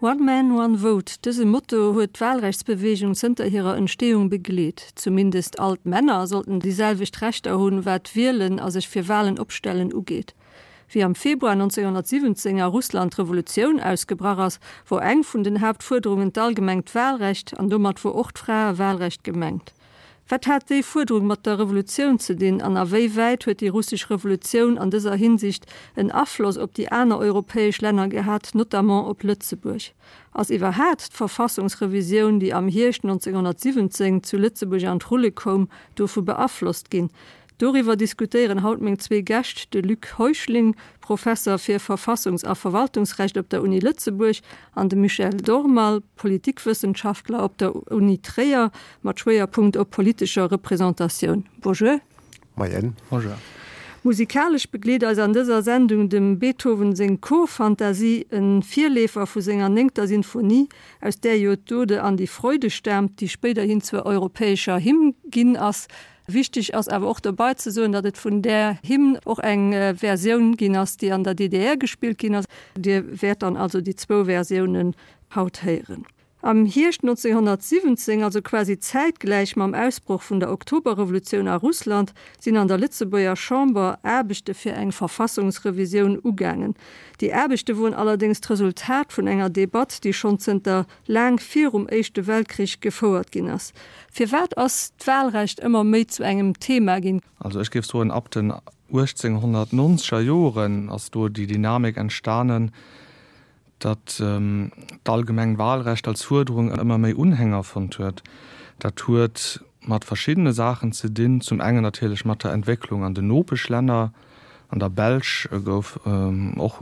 One man, one vote, dëse Motto huet d'Wahlrechtsbeweegung zënter hirer Entstehung begleet. Zumindest all d'Männer sollten déi selwecht Rechter hunn, wat d'Wielen a sech fir Wahlen opstellen ugeet. Wéi am Februar 1917 a Russland d'Revolutioun ausgebrach ass, wor eng vun den Haaptfuerderungen d'allgemengt Wahlrecht an domat wor och d'Fraewahlrecht gemengt. Wat hat déi Fuerderung mat der Revolutioun ze dinn an a wéi wäit huet déi russesch Revolutioun an dëser Hinsicht en Afloss op déi aner europäesch Länner gehat, notamment op Lëtzebuerg? Ass iwwerhaat d'Verfassungsrevisioun, déi am Hierscht 1917 zu Lëtzebuerg an d'Rulle koum, dovu beaflosst ginn? Doriwwer diskutéieren haut meng zwee Gäscht, de Luc Heuschling, Professer fir Verfassungs a Verwaltungsrecht op der Uni Lëtzebuerg, an de Michel Dormal, Politikwëssenschaftler op der Uni Tréier mat Schwéierpunkt op politescher Representatioun. Bonjour. Moien. Bonjour. Musikalesch begleet eis an dëser Sendung dem Beethoven seng Chorfantasie, e Virleefer vu senger néngter Sinfonie, aus där jo d'Ode an die Freude staamt, déi spéiderhin zur europäescher Hymn ginn ass. Wichteg ass awer och dobei ze soen, datt et vun där Hymn och eng Versioun ginn ass, déi an der DDR gespillt ginn ass. Dir wäert dann also déi zwou Versiounen haut héieren. Am Hierscht 1917, also quasi zäitgläich mam Ausbroch vun der Oktoberrevolutioun a Russland, sinn an der Lëtzebuerger Chamber Aarbechte fir eng Verfassungsrevisioun ugaangen. Déi Aarbechte woren allerdéngs d'Resultat vun enger Debatt, déi schonn zënter laang virum Éischte Weltkrich gefouert ginn ass. Firwat ass d'Wahlrecht ëmmer méi zu engem Thema ginn? Also ech géif soen, ab den 1890er Joren ass do déi Dynamik entstanen, datt d'allgemeng Wahlrecht als Fuerderung ëmmer méi Unhänger fonnt huet. Dat huet mat verschiddene Saachen ze dinn, zum engen natierlech mat der Entwécklung an den Nopeschlänner, an der Belsch gouf och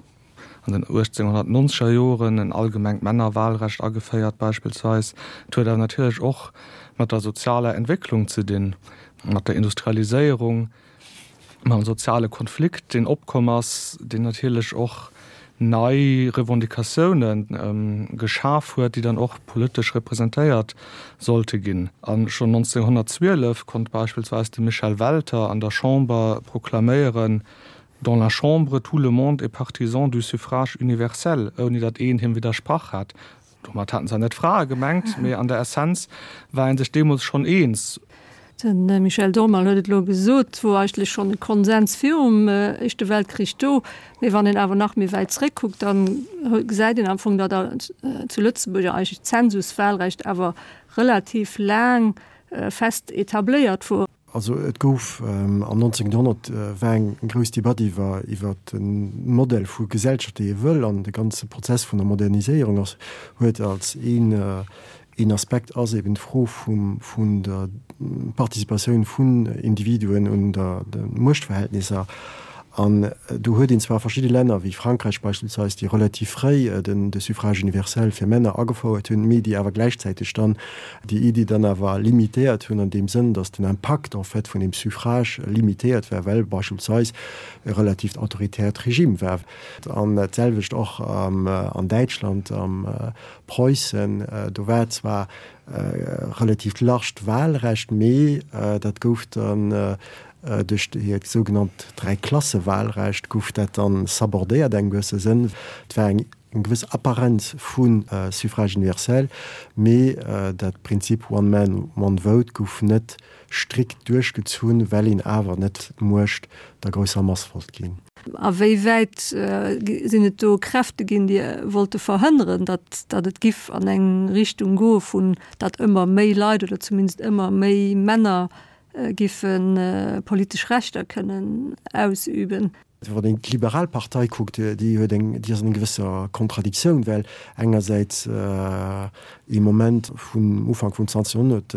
an den 1890er Joren en allgemengt Männerwahlrecht ageféiert beispillsweis. Et huet awer natierlech och mat der sozialer Entwécklung ze dinn, mat der Industrialiséierung, mam soziale Konflikt, deen opkomm ass, deen natierlech och nei Revendicatioune geschaf huet, déi dann och politesch representéiert sollte ginn. A schonn 1912 konnt beispillsweis de Michel Welter an der Chamber proklaméieren, Dans la Chambre, tout le monde est partisan du suffrage universel, ouni datt een him widdersprach hat. Domat haten zwar net d'Frae gemengt, mee an der Essenz war ee sech deemools schonn eens. De Michel Dormal huet et elo gesot, et wor eigentlech schonn e Konsens virum Éischte Weltkrich do. Mee wann een awer nach méi wäit zréckkuckt, da gesäit een am Fong, datt zu Lëtzebuerg eigentlech d'Zensuswahlrecht awer relativ laang fest etabléiert wor. Also et gouf am 19. Joerhonnert war eng grouss Debatt iwwer iwwer de Modell vu Gesellschaft, déi ee wëll, an de ganze Prozess vun der Moderniséierung ass huet als een een Aspekt ass eben d'Fro vum vun der Participatioun vun Individuen un der de Muechtverhältnisser. An do huet een zwar verschidde Länner, wéi Frankräich beispillsweis, déi relativ fréi den de Suffrage universel fir Männer agefouert hunn, mee déi awer gläichzäiteg dann déi Iddi dann awer limitéiert hunn an deem Sënn, datt den Impakt en fait vun deem Suffrage limitéiert war, well beispillsweis e relativt autoritäert Regime war. An dat selwecht och an Däitschland, am Preussen, do war zwar e relativt larged Wahlrecht, mee dat gouf dann Duerch hiert sougenannt Dräiklasse-Wahlrecht gouf dat dann sabordéiert engem gewësse Sënn. Et war eng gewëss Apparenz vu Suffrage universel, mee dat Prinzip one man, one vote gouf net strikt duerchgezunn, well een awer net d'Muecht der grousser Mass wollt ginn. A wéi wäit sinn et do Kräfte ginn, déi wollte verhënneren, datt datt et giff an eng Richtung goe vun datt ëmmer méi Leit oder zumindest ëmmer méi Männer giffe politesch Rechter kënnen ausüben. Wann een d'Liberal Partei kuckt, déi huet eng, déi ass an enger gewësser Kontradiktioun, well engersäits ee Moment vun Ufank vum 20. Joerhonnert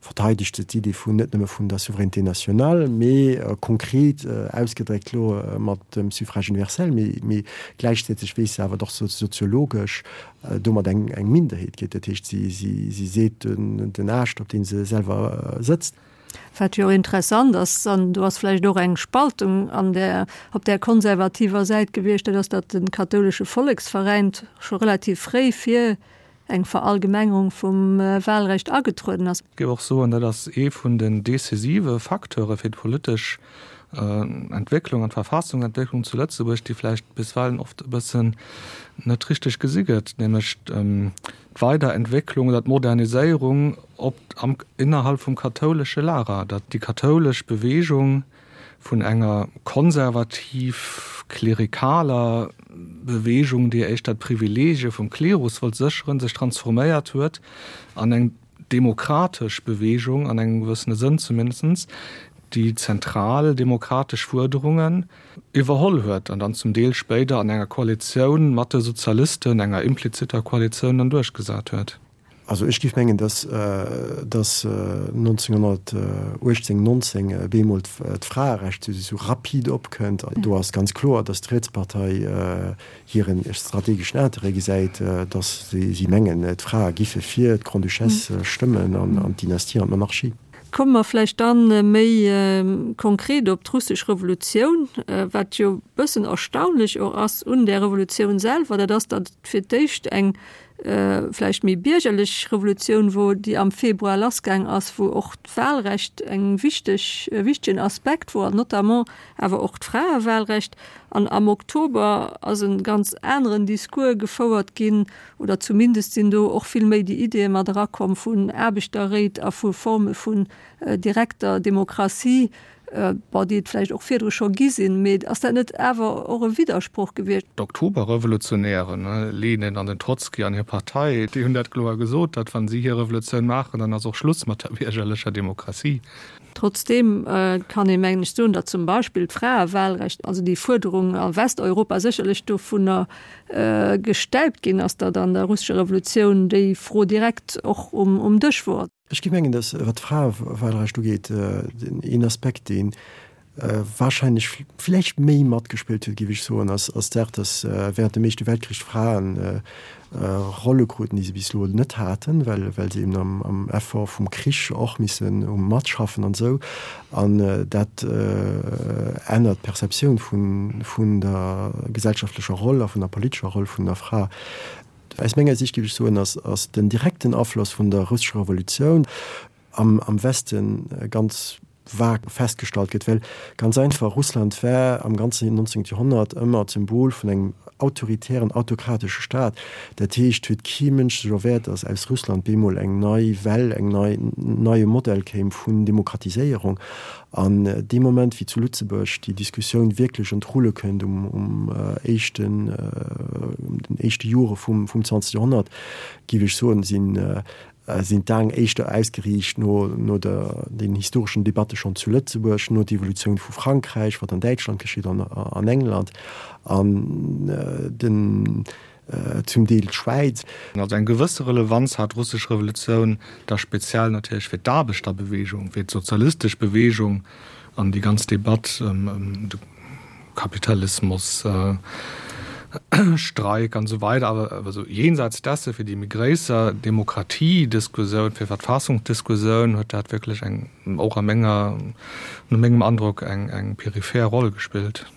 verteidegt se d'Idee vun net nëmme vun der Souveraineté nationale, mee konkret ausgedréckt elo mat dem Suffrage universel, mee gläichzäiteg weess se awer och soziologesch domat eng Minderheet gétt. Dat heescht, si seet den Aascht, op deem se selwer sëtzt. Wat jo och interessant ass, an do ass vläicht och eng Spaltung an där, op där konservativer Säit gewiescht, dat ass, datt de kathoulesche Volleksveräin scho relativ fréi fir eng Verallgemengerung vum Wahlrecht agetrueden ass. Ech géif och soen, dat ass ee vun den decisive Facteure fir d'politesch. Entwécklung an d'Verfassungsentwécklung zu Lëtzebuerg, déi vläicht bisweilen oft e bëssen net richteg gesi gëtt, nämlech d'Weiderentwécklung oder d'Moderniséierung op am innerhalb vum kathoulesche Lager, datt déi kathoulesch Bewegung vun enger konservativ-klerikaler Bewegung, déi éischter d'Privilegie vum Klerus wollt sécheren, sech transforméiert huet an eng demokratesch Bewegung, an engem gewëssene Sënn zumindest, déi zentral demokratesch Fuerderungen iwwerholl huet an dann zum Deel spéider an enger Koalitioun mat de Sozialisten, enger implizitter Koalitioun, dann duerchgesat huet. Also ech géif mengen, dass dass 1918, 19 bemol d'Fraerecht esou rapid opkënnt. Do ass ganz kloer, dass d'Rietspartei hiren strategeschen Interêt gesäit, dass si mengen, d'Frae giffe fir d'Grande-Duchesse stëmmen an d'Dynastie an d'Monarchie. Komme mer vläicht dann méi konkret op d'russesch Revolutioun. Wat jo e bëssen erstaunlech och ass un där Revolutioun selwer, dat ass, datt et fir d'éischt eng vläicht méi biergerlech Revolutioun wor, déi am Februar lassgaang ass, wou och d'Wahlrecht eng wichteg, e wichtegen Aspekt wor, an notamment awer och d'Fraewahlrecht. An am Oktober ass e ganz aneren Discours gefouert ginn, oder zumindest sinn do och vill méi déi Ideeë mat erakomm vun Aarbechterréit a vu Forme vun direkter Demokratie, Bon, déi et vläicht och virdru scho gi sinn, mee ass dat net awer och e Widdersproch gewiescht? D'Oktoberrevolutionären, Lenin an den Trotzki an hir Partei, déi hunn dat kloer gesot, datt wa si hir Revolutioun maachen, dann ass och Schluss mat der biergerlecher Demokratie. Trotzdeem kann ee mengen ech soen, datt zum Beispill d'Fraewahlrecht, also déi Fuerderung a Westeuropa sécherlech dovunner gestäipt ginn ass, datt an der russescher Revolutioun déi Fro direkt och um Dësch wor. Ech géif mengen, datt, wat d'Fraewahlrecht ugeet, een Aspekt, dee wahrscheinlech vläicht méi matgespillt huet, géif ech soen, ass d'Saach, datt während dem Éischte Weltkrich d'Fraen Rolle kruten, déi se bis elo net haten, well se eben am Effort vum Krich och missen matschaffen an esou. An dat ännert d'Perceptioun vun der gesellschaftlecher Roll a vun der politescher Roll vun der Fra. Aus menger Sicht, géif ech soen, ass den direkten Afloss vun der russescher Revolutioun am Weste ganz vag festgestallt gëtt, well ganz einfach, Russland war am ganzen 19. Joerhonnert ëmmer d'Symbol vun engem autoritären, autokratesche Staat. Dat heescht, huet kee Mënsch sech erwäert, datt aus Russland bemol eng nei Well, eng nei, neie Modell kéim vun Demokratiséierung. An dee Moment, wéi zu Lëtzebuerg déi Diskussioun wierklech an d'Rulle kënnt um éischten, den éischte Jore vum 20. Joerhonnert, géif ech soen, sinn, sinn d'Aen éischter ausgeriicht no, no der, den historeschen Debatte schonn zu Lëtzebuerg, no d'Evolutioun vu Frankräich, wat an Däitschland geschitt an an England an den, zum Deel d'Schwäiz. Also eng gewësse Relevanz hat d'russesch Revolutioun da speziell natierlech fir d'Aarbechterbewegung, fir d'sozialistesch Bewegung an déi ganz Debatt ëm de Kapitalismus, Streik an esou weider. Awer also jenseits desse fir déi méi gréisser Demokratiediskussioun, fir Verfassungsdiskussioun huet dat wierklech eng, och a menger, no mengem Androck, eng eng peripher Roll gespillt.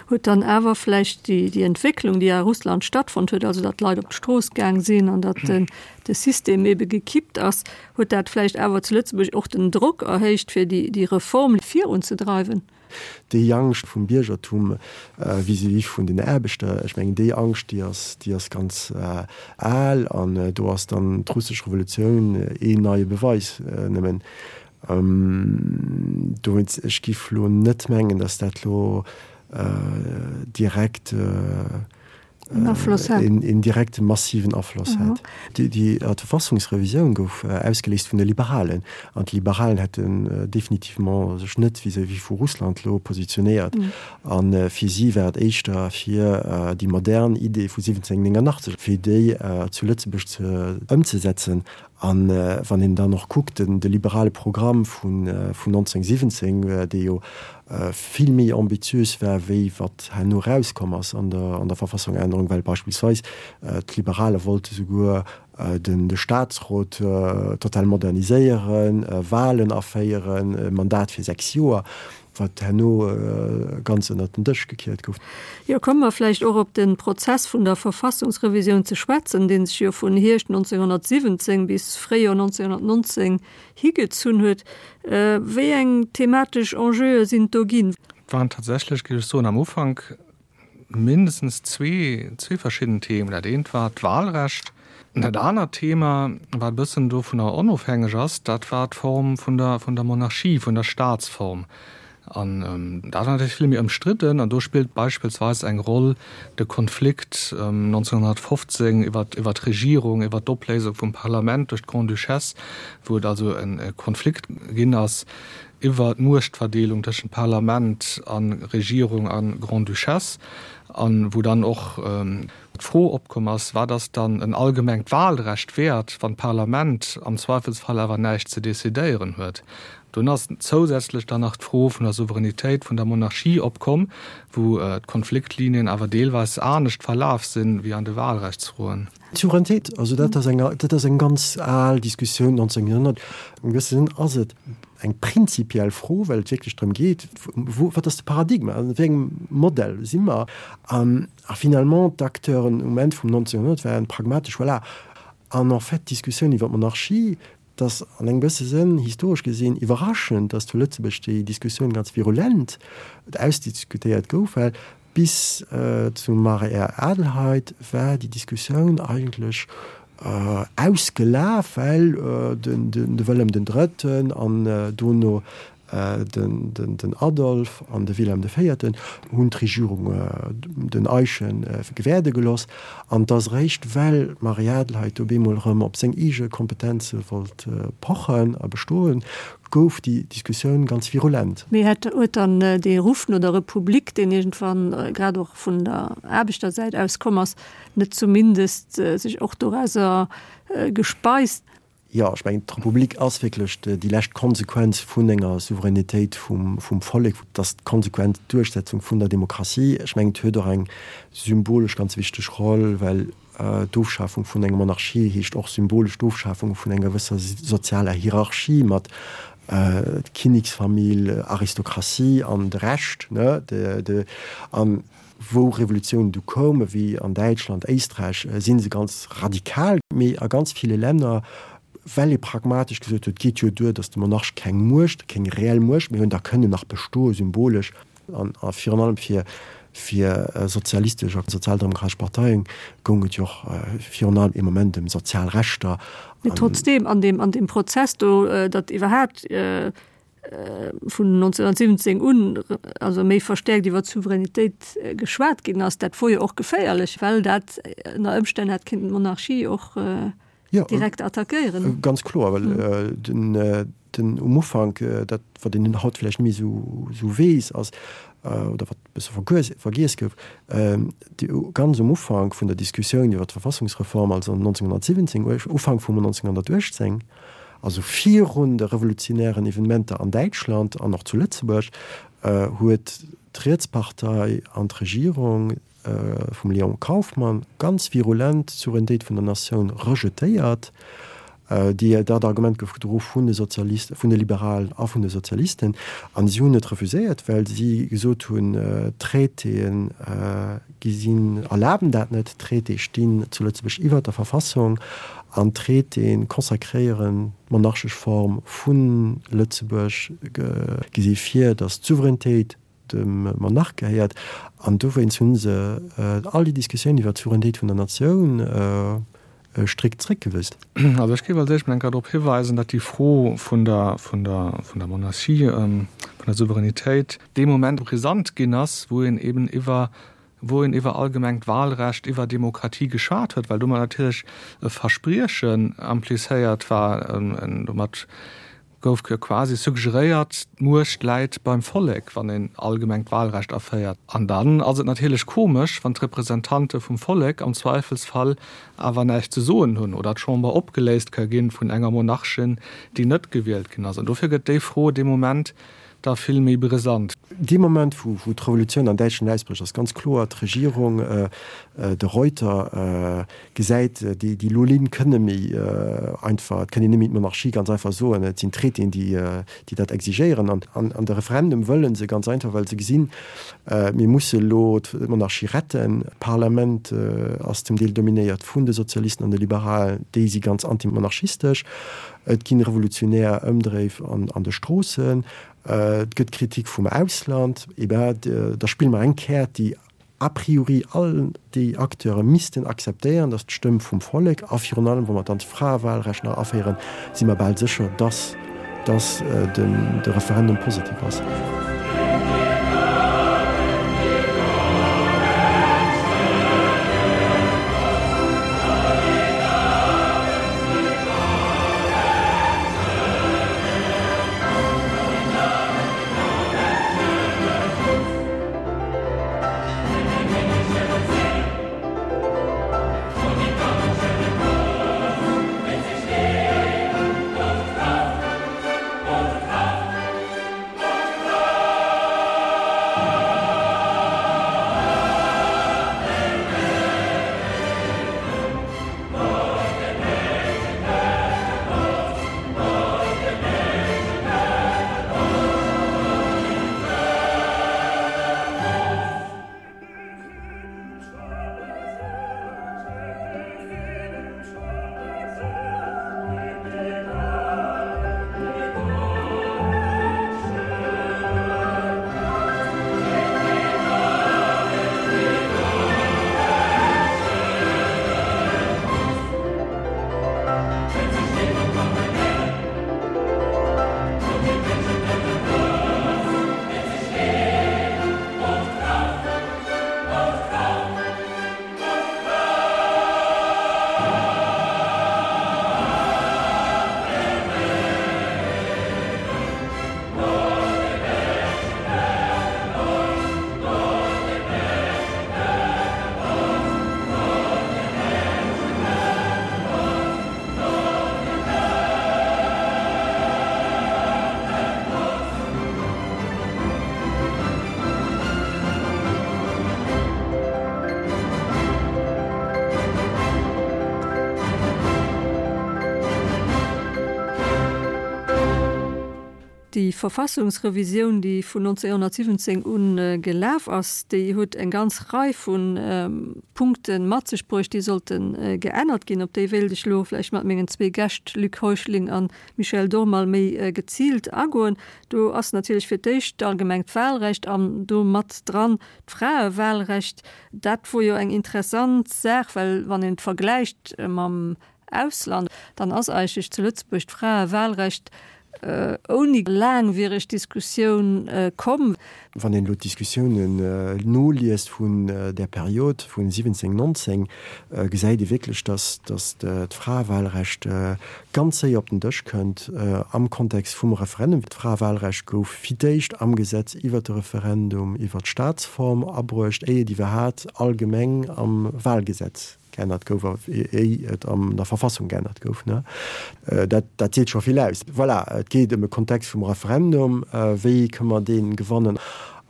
Huet dann awer vläicht déi, déi Entwécklung, déi a Russland stattfonnt huet, also datt d'Leit op d'Strooss gaang sinn an datt den, de System ebe gekippt ass, huet dat vläicht awer zu Lëtzebuerg och den Drock erhéicht, fir déi, déi Reform virunzedreiwen? Déi Angscht vum Biergertum vis-à-vis vun den Aarbechter, ech mengen, déi Angscht, déi ass, déi ass ganz al an do ass dann d'russesch Revolutioun een neie Beweis nëmmen. Dowéinst, ech giff lo net mengen, datt dat lo direkt een direkte massiven Afloss hat. Déi Verfassungsrevisioun gouf ausgeléist vun de Liberalen, an d'Liberalen hätten definitivement sech net vis-à-vis vu Russland lo positionéiert, a fir si war et éischter fir déi modern Idee vu 1789, fir déi zu Lëtzebuerg ze ëmzesetzen. A wann een dann och kuckt, de liberale Programm vun 1917, dee jo vill méi ambitiös war, wéi wat herno erauskomm ass an der Verfassungännerung, well beispillsweis d'Liberale wollte souguer de Statsrot total moderniséieren, Wahlen aféieren, e Mandat fir 6 Joer. Wat herno ganz ënnert den Dësch gekiert gouf. Jo, komme mer vläicht och op de Prozess vun der Verfassungsrevisioun ze schwätzen, dee sech jo vun Hierscht 1917 bis Fréijoer 1919 higezunn huet. Wéi eng thematesch Enjeue sinn et do ginn? Et waren tatsächlech, géif ech soen, am Ufank mindestens zwee, zwee verschidden Themen. Dat eent war d'Wahlrecht. Dat anert Thema, wat e bëssen dovunner onofhängeg ass, dat war d'Form vun der, vun der Monarchie, vun der Staatsform. An dat war natierlech vill méi ëmstridden. An do spillt beispillsweis eng Roll de Konflikt 1915 iwwer, iwwer d'Regierung, iwwer d'Opléisung vum Parlament duerch d'Grande-Duchesse, wou et also e Konflikt ginn ass iwwer d'Muechtverdeelung tëschent Parlament a Regierung a Grande-Duchesse, a wou dann och d'Fro opkomm ass, Wat ass dann en allgemengt Wahlrecht wäert, wann d'Parlament am Zweifelsfall awer näischt ze decidéieren huet? Dunn ass zousätzlech dann nach d'Fro vun der Souveränitéit vun der Monarchie opkomm, wou d'Konfliktlinien awer deelweis anescht verlaf sinn, wéi an de Wahlrechtsfroen. D'Souveränitéit, also dat ass eng, dat ass eng ganz al Diskussioun, 19. Joerhonnert. Am gewësse Sënn ass et eng prinzipiell Fro, well et wierklech drëm geet, wou, wat ass de Paradigma, an wéi engem Modell si mer? A finalement, d'Acteuren um Enn vum 19. Joerhonnert waren pragmatesch, voilà. An en fait, d'Diskussioun iwwer d'Monarchie, Et ass an engem gewësse Sënn, historesch gesinn, iwwerraschend, datt zu Lëtzebuerg déi Diskussioun ganz virulent ausdiskutéiert gouf, well bis zum Marie-Adelheid war déi Diskussioun eigentlech ausgelaf, well de Wëllem den Drëtten an dono Den Adolf an de Wilhelm de Véierten hunn d'Regierung den Eyschen gewäerde geloss, an et ass eréischt well d'Marie-Adelheid do bemol erëm op seng eege Kompetenze wollt pochen a bestoen, gouf déi Diskussioun ganz virulent. Mee hätt huet dann dee Ruff no der Republik, deen iergendwann grad och vun der Aarbechtersäit aus komm ass, net zumindest sech och dorauser gespeist? Jo, ech mengen, d'Republik ass wierklech déi lescht Konsequenz vun enger Souveränitéit vum Vollek. Et ass d'konsequent Duerchsetzung vun der Demokratie. Ech mengen, et huet och eng symbolesch ganz wichteg Roll, well d'Ofschafung vun enger Monarchie heescht och symbolesch d'Ofschafung vun enger gewësser sozialer Hierarchie mat Kinneksfamill, Aristokratie an de Rescht. An Wou Revolutiounen du koumen, wéi an Däitschland, Éisträich, si se ganz radikal. Mee a ganz ville Länner, well ee pragmatesch gesot huet, et geet jo duer, datt de Monarch keng Muecht, keng reell Muecht méi hunn, da kënn en nach bestoe symbolesch. An virun allem fir fir sozialistesch a sozialdemokratesch Parteien goung et jo och virun allem ee Moment ëm sozial Rechter. Mee trotzdeem, an deem an deem Prozess do, datt iwwerhaapt vun 1917 un also méi verstäerkt iwwer d'Souveränitéit geschwat ginn ass, dat wor jo och geféierlech, well dat ënner Ëmstänn hätt kinnten d'Monarchie och direkt attackéieren. Ganz kloer, well den den um Ufank, dat wat een haut vläicht net méi esou esou weess ass, oder wat e bësse vergiess gouf, déi ganz um Ufank vun der Diskussioun iwwer d'Verfassungsreform, also 1917, Ufank vum 1918, Also virun de revolutionären Evenementer an Däitschland an och zu Lëtzebuerg huet d'Rietspartei an d'Regierung vum Léon Kauffmann ganz virulent d'Souveränitéit vun der Natioun rejetéiert. Déi, dat Argument gouf gedro vun de Sozialisten, vun de Liberalen a vun de Sozialisten. An si hunn et refuséiert, well si gesot hunn, d'Traitéen Gi sinn, erlaben dat net. D'Traitéë stinn zu Lëtzebuerg iwwert der Verfassung an d'Traitéë consacréieren d'monarchesch Form vu Lëtzebuerg, gesi vir, datt d'Souveränitéit dem Monarch gehéiert. An dowéinst hu se all déi Diskussioun iwwert d'Souveränitéit vun der Natioun strikt zréckgewisen. Also ech géif als éischt mol eng Kéier drop hiweisen, datt déi Fro vun der, vun der, vun der Monarchie, vun der Souveränitéit, dee Moment brisant ginn ass, wou een eben iwwer, wou een iwwer allgemengt Wahlrecht, iwwer Demokratie geschwat huet, well domat natierlech e Verspriechen implizéiert war, domat gouf quasi suggeréiert, d'Muecht läit beim Vollek, wann een allgemengt Wahlrecht aféiert. An dann ass et natierlech komesch, wann d'Representante vum Vollek am Zweifelsfall awer näischt ze soen hunn oder d'Chamber opgeléist ka ginn vun enger Monarchin, déi net gewielt ginn ass. An dofir gëtt déi Fro dee Moment. Da vill méi brisant. Dee Moment, wou d'Revolutioun an Däitschland ausbrécht, ass ganz kloer, d'Regierung, de Reuter, gesäit, déi lo Linn kënne méi einfach, et kënn een net méi d'Monarchie ganz einfach soen, et sinn d'Traitéen, déi dat exigéieren. An de Referendum wëlle se ganz einfach, well se gesinn, mir musse lo d'Monarchie retten. D'Parlament ass zum Deel dominéiert vun de Sozialisten an de Liberalen, déi si ganz antimonarchistesch. Et ginn revolutionär Ëmdréif an de Stroossen, et gëtt Kritik vum Ausland. Eh ben, da spille mer eng Käert, déi a priori all déi Acteure missten akzeptéieren, dat ass d'Stëmm vum Vollek. A virun allem, wa mer dann d'Fraewahlrecht nach aféieren, si mer bal sécher, dass dass de Referendum positiv ass. Déi Verfassungsrevisioun, déi vun 1917 u gelaf ass, déi huet eng ganz Rei vu Punkte mat sech bruecht, déi sollte geännert ginn. Op déi wéilt ech elo vläicht mat mengen zwee Gäscht, Luc Heuschling a Michel Dormal, méi geziilt agoen. Do ass natierlech fir d'éischt d'allgemengt Wahlrecht an do mat dran d'Fraewahlrecht. Dat wor jo eng interessant Saach, well wann een et vergläicht mam Ausland, dann ass eigentlech zu Lëtzebuerg d'Fraewahlrecht ouni laangwiereg Diskussioun komm. Wann een elo d'Diskussiounen noliest vun där Period vun 17, 19, gesäit ee wierklech, dass d'Fraewahlrecht ganz séier op den Dësch kënnt am Kontext vum Referendum. D'Fraewahlrecht gouf fir d'éischt am Gesetz iwwert de Referendum iwwert d'Staatsform abruecht, éier et iwwerhaat allgemeng am Wahlgesetz geännert gouf a éi et an der Verfassung geännert gouf. Dat, dat seet scho vill aus. Voilà, et geet ëm e Kontext vum Referendum, wéi kënne mer dee gewannen?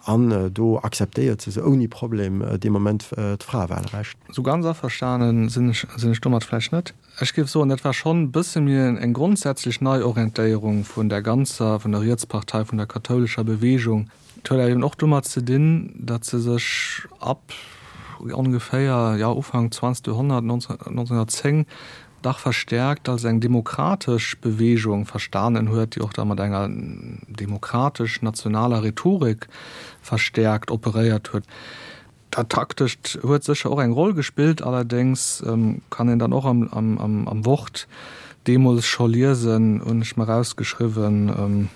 An do akzeptéiert se se ouni Problem dee Moment d'Fraewahlrecht. Sou ganz averstane sinn ech, sinn ech domat vläicht net. Ech géif soen, dat war schonn e bësse méi eng grondsätzlech Neiorientéierung vun der ganzer, vun der Rietspartei, vun der kathoulescher Bewegung. Et huet awer eben och domat ze dinn, datt se sech ab ongeféier, jo, Ufank zwanzegt Joerhonnert, 1910, dach verstäerkt als eng demokratesch Bewegung verstanen huet, déi och da mat enger demokratesch-nationaler Rhetorik verstäerkt operéiert huet. Dat Taktescht huet sécher och eng Roll gespillt, allerdéngs kann een dann och am Wort deemools scho liesen, hunn ech mer erausgeschriwwen,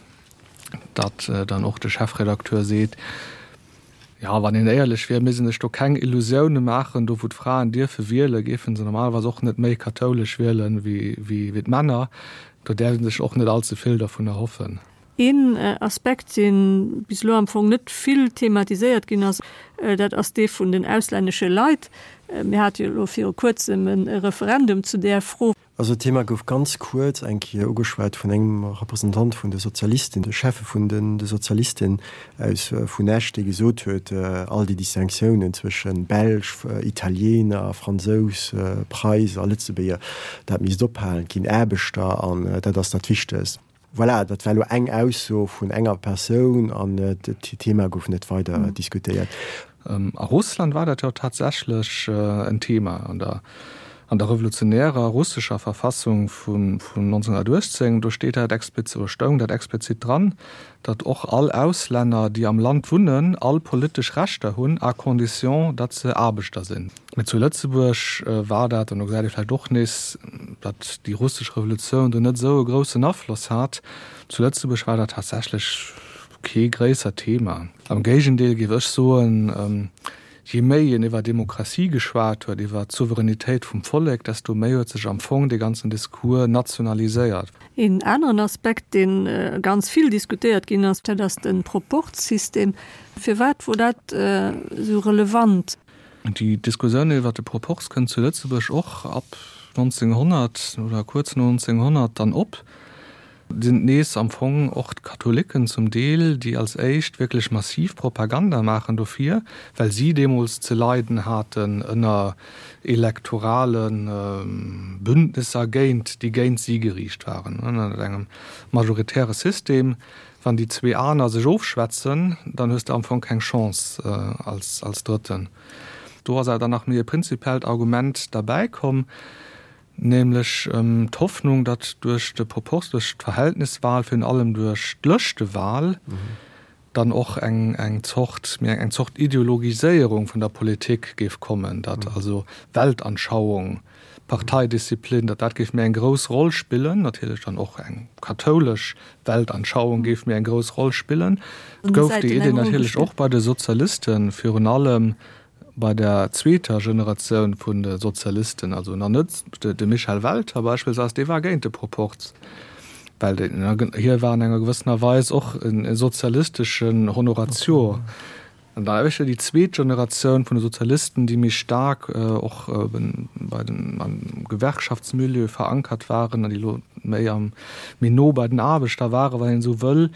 datt dann och de Chefredakteur seet, jo, wann een éierlech wier, misst ee sech do keng Illusioune maachen, do wou d'Fraen dierfe wielen, géife se normalerweis och net méi kathoulesch wielen wéi d'Männer. Do däerf ee sech och net allze vill dervun erhoffen. Een Aspekt, dee bis elo am Fong net vill thematiséiert ginn ass, dat ass dee vun den auslännesche Leit. Mir hate jo elo viru Kuerzem e Referendum zu där Fro. Also d'Thema gouf ganz kuerz eng Kéier ugeschwat vun engem Representant vun de Sozialisten, de Cheffe vun de Sozialisten aus vun Esch, dee gesot huet, all déi Distinctiounen zwësche Belsch, Italiener, Fransous, Preis a Lëtzebuerger, dat misst ophalen. Et ginn Aarbechter an dat ass dat Wichtegst. Voilà, dat war elo eng Ausso vun enger Persoun an d'Thema gouf net weider diskutéiert. A Russland war dat jo tatsächlech en Thema an der an der revolutionärer russescher Verfassung vun 1918. Do steet dat explizit, oder stoung dat explizit dran, datt och all Auslänner, déi am Land wunnen, all politesch Rechter hunn, à condition, datt se Aarbechter sinn. Mee zu Lëtzebuerg war dat, an do gesäit ee vläicht och nees, datt déi russesch Revolutioun do net esou e groussen Afloss hat, zu Lëtzebuerg war dat tatsächlech kee gréissert Thema. Am Géigendeel géif ech soen, je méi een iwwer Demokratie geschwat huet, iwwer d'Souveränitéit vum Vollek, desto méi huet sech am Fong dee ganzen Discours nationaliséiert. Een aneren Aspekt, dee ganz vill diskutéiert ginn ass, dat ass de Proporzsystem. Firwat wor dat esou relevant? Déi Diskussioun iwwer de Proporz kënnt zu Lëtzebuerg och ab 1900 oder kuerz no 1900 dann op. Et sinn nees am Fong och d'Katholiken zum Deel, déi als éischt wierklech massiv Propaganda maachen dofir, well si deemools ze leiden haten ënner elektorale Bündnisser géint, déi géint si geriicht waren. Ënner engem majoritäre System Wann déi zwee aner sech ofschwätzen, dann hues de am Fong keng Chance als als Drëtten. Do ass awer dann nach méi e prinzipiellt Argument derbäi komm, nämlech d'Hoffnung, datt duerch de Proporz, duerch d'Verhältniswahl, virun allem duerch d'Lëschtewahl, dann och eng eng Zort, méi eng Zort Ideologiséierung vun der Politik géif kommen, datt also Weltanschauung, Parteidisziplin, datt dat géif méi eng grouss Roll spillen, natierlech dann och eng kathoulesch Weltanschauung géif méi eng grouss Roll spillen. Et gouf déi Idee natierlech och bei de Sozialisten, virun allem bei der zweeter Generatioun vun de Sozialisten, also nach net de Michel Welter beispillsweis, dee war géint de Proporz, well hie war an enger gewëssener Weis och e sozialisteschen Honoratio. An da éischter déi zweet Generatioun vun de Sozialisten, déi méi staark och bei den, am Gewerkschaftsmilieu verankert waren an déi elo méi am, méi no bei den Aarbechter waren, wann een esou wëll,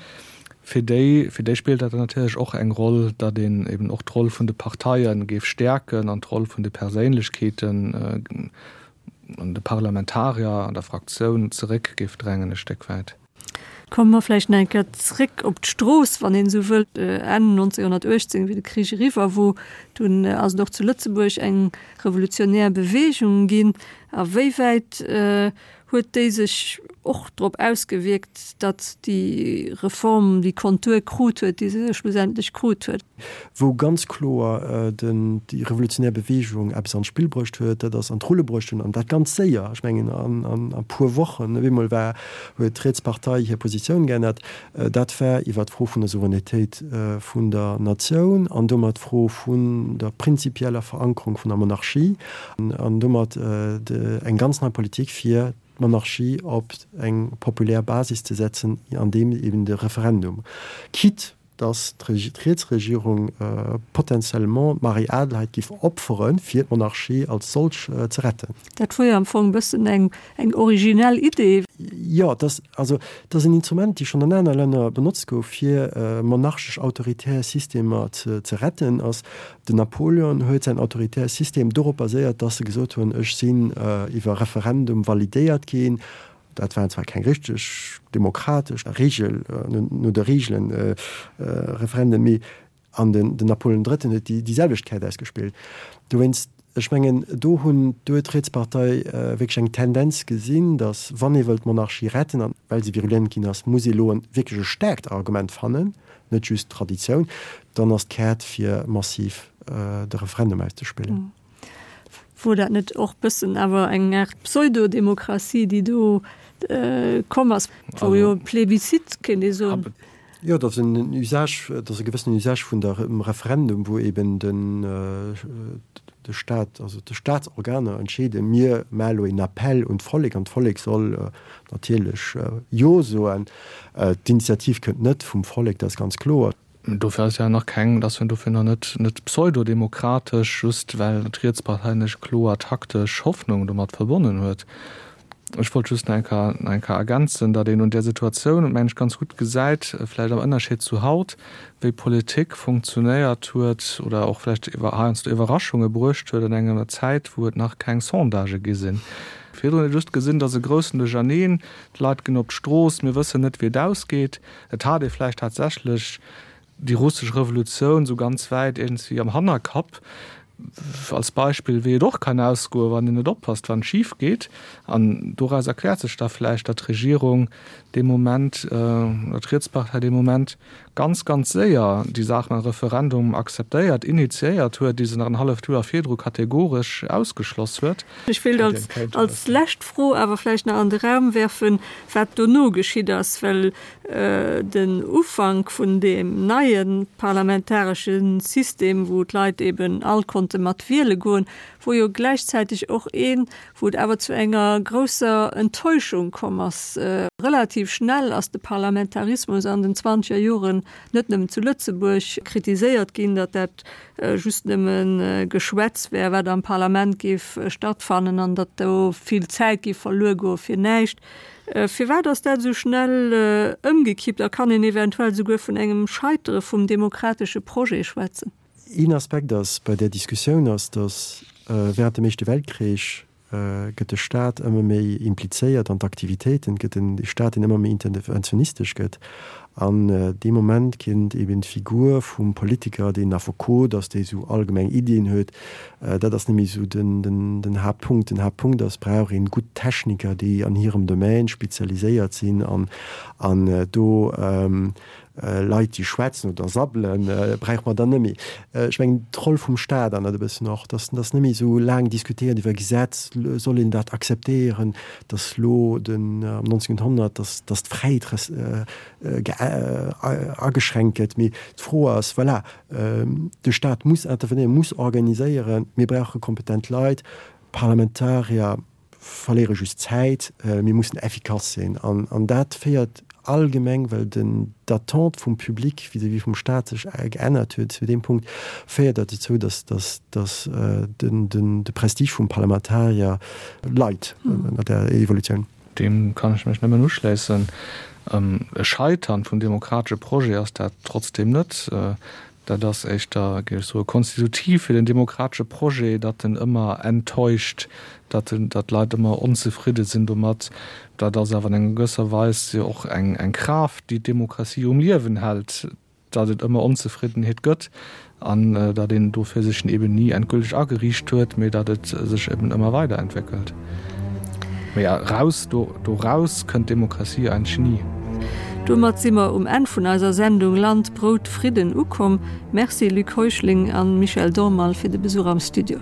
fir déi, fir déi spillt dat dann natierlech och eng Roll, datt een eben och d'Roll vun de Parteie géif stäerken an d'Roll vun de Perséinlechkeeten an de Parlamentarier an der Fraktioun zeréck géif drängen e Stéck wäit. Komme mer vläicht nach eng Kéier zréck op d'Strooss, wann een esou wëllt. Enn 1918, wéi de Krich eriwwer wor, dunn ass et och zu Lëtzebuerg eng revolutionär Beweegung ginn. A wéi wäit huet déi sech och drop ausgewierkt, datt déi Reform déi Kontur krut huet, déi se schlussendlech krut huet? Wou ganz kloer déi revolutionär Bewegung eppes an d'Spill bruecht huet, dat ass an d'Rulle bruecht hunn, an dat ganz séier, ech mengen an e puer Wochen, op eemol war, huet d'Rietspartei hir Positioun geännert, dat war iwwert d'Fro vun der Souveränitéit vun der Natioun an domat d'Fro vun der prinzipieller Verankerung vun der Monarchie an domat eng ganz nei Politik fir d'Monarchie op eng populär Basis ze setzen, andeem eben de Referendum, quitte datt d'Rietsregierung potentiellement d'Marie-Adelheid giff opferen, fir d'Monarchie als solch ze retten. Dat wor jo am Fong e bëssen eng eng originell Idee. Jo, et ass, also et ass en Instrument, déi schonn an aner Länner benotzt gouf, fir monarchesch autoritär Systemer ze retten. Ass den Napoleon huet säin autoritär System dorop baséiert, datt e gesot hunn, ech sinn iwwer Referendum validéiert ginn, Dat waren zwar keng richteg demokratesch Regel, no de Regelen Referenden, mee an den Napoleon Drëtten huet déi selwecht Käert ausgespillt. Dowéinst, ech mengen, do hunn, do huet d'Rietspartei wierklech eng Tendenz gesinn, datt wann ee wëllt d'Monarchie retten, an well se virulent ginn ass, muss ee elo wierklech e staarkt Argument fannen, net just Traditioun, dann ass d'Käert fir massiv de Referendum auszespillen. Wor dat net och bëssen awer eng Aart Pseudodemokratie, déi do komm ass? Wor jo e Plebiscite, kéint ee soen. Jo, dat ass en Usage, dat ass e gewëssenen Usage vun der Referendum, wou eben den de Staat, also de Staatsorganer entscheeden, mir maache lo een Appell un d'Vollek an d'Vollek soll natierlech Jo soen. D'Initiativ kënnt net vum Vollek, dat ass ganz kloer. Dofir ass ja nach keng, et ass jo dofir nach net net pseudodemokratesch, just well d'Rietspartei net kloer taktesch Hoffnung domat verbonnen huet. Ech wollt just nach eng Kéier, nach eng Kéier ergänzen, datt een un där Situatioun, mengen ech, ganz gutt gesäit, vläicht am Ënnerscheed zu haut, wéi Politik funktionéiert huet oder och vläicht heiansdo Iwwerraschunge bruecht huet an enger Zäit, wou et nach keng Sondagë gi sinn. Virdrun huet ee just gesinn, datt e groussen Duercherneen, d'Leit ginn op d'Strooss, mir wëssen net, wéi et ausgeet. Et hat ee vläicht tatsächlech déi russesch Revolutioun esou ganz wäit iergendwéi am Hannerkapp, als Beispill, wéi et och kann ausgoen, wann een net oppasst, wann et schif geet. An doraus erkläert sech da vläicht, datt d'Regierung dee Moment, oder d'Rietspartei dee Moment ganz, ganz séier déi Saach mam Referendum akzeptéiert, initiéiert huet, déi se nach en halleft Joer virdru kategoresch ausgeschloss huet. Ech wéilt als, als lescht Fro awer vläicht nach an de Raum werfen, wat dono geschitt ass, well Den Ufank vun deem neie parlamentaresche System, wou d'Leit eben all konnte mat wiele goen, wor jo gläichzäiteg och een, wou et awer zu enger grousser Enttäuschung komm ass. Relativ schnell ass de Parlamentarismus an den zwanzeger Joren net nëmmen zu Lëtzebuerg kritiséiert ginn, datt dat just nëmme Geschwätz wär, wat am Parlament géif stattfannen an datt do vill Zäit géif verluer goe fir näischt. Firwat ass dat esou schnell ëmgekippt a kann een eventuell souguer vun engem Scheitere vum demokratesche Projet schwätzen? Een Aspekt ass bei där Diskussioun ass, datt während dem Éischte Weltkrich gëtt de Staat ëmmer méi implizéiert an d'Aktivitéiten, et gëtt en Staat deen ëmmer méi interventionistesch gëtt an dee Moment kinnt eben d'Figur vum Politiker, deen Affekot ass, dee esou allgemeng Iddien huet, dat ass net méi esou den Haaptpunkt. Den Haaptpunkt ass, brauch een gutt Techniker, déi an hirem Domaine spezialiséiert sinn an do Leit, déi schwätzen oder sabbelen, brauche mer dann net méi. Ech mengen, d'Roll vum Staat ännert e bëssen och, dass dass net méi esou laang diskutéiert iwwer Gesetz, soll een dat akzeptéieren, dass elo den am 1900, dass dass d'Fräiheet ageschränkt gëtt. Mee d'Fro ass, voilà, de Staat muss intervenéieren, muss organiséieren, mir brauche kompetent Leit, Parlamentarier verléiere just Zäit, mir mussen effikass sinn. An dat féiert allgemeng, well den d'Attente vum Public vis-à-vis vum Staat sech geännert huet zu deem Punkt, féiert dat dozou, datt datt de Prestige vum Parlamentarier leit ënner där Evolutioun. Deem kann ech mech nëmmen uschléissen. E Scheitern vum demokratesche Projet ass dat trotzdeem net. Dat ass éischter, géif ech soen, konstitutiv fir den demokratesche Projet, datt en ëmmer enttäuscht, datt en, datt d'Leit ëmmer onzefridde sinn domat. Dat ass awer an enger gewësser Weis jo och eng, eng Kraaft, déi d'Demokratie um Liewen hält, datt et ëmmer Onzefriddenheet gëtt an datt een dofir sech eben ni endgülteg ageriicht huet, mee datt et sech eben ëmmer weiderentwéckelt. Mee eraus, do doraus kënnt d'Demokratie eigentlech ni. Domat si mer um Enn vun eiser Sendung Land, Brout, Fridden ukomm. Merci Luc Heuschling an Michel Dormal fir de Besuch am Studio.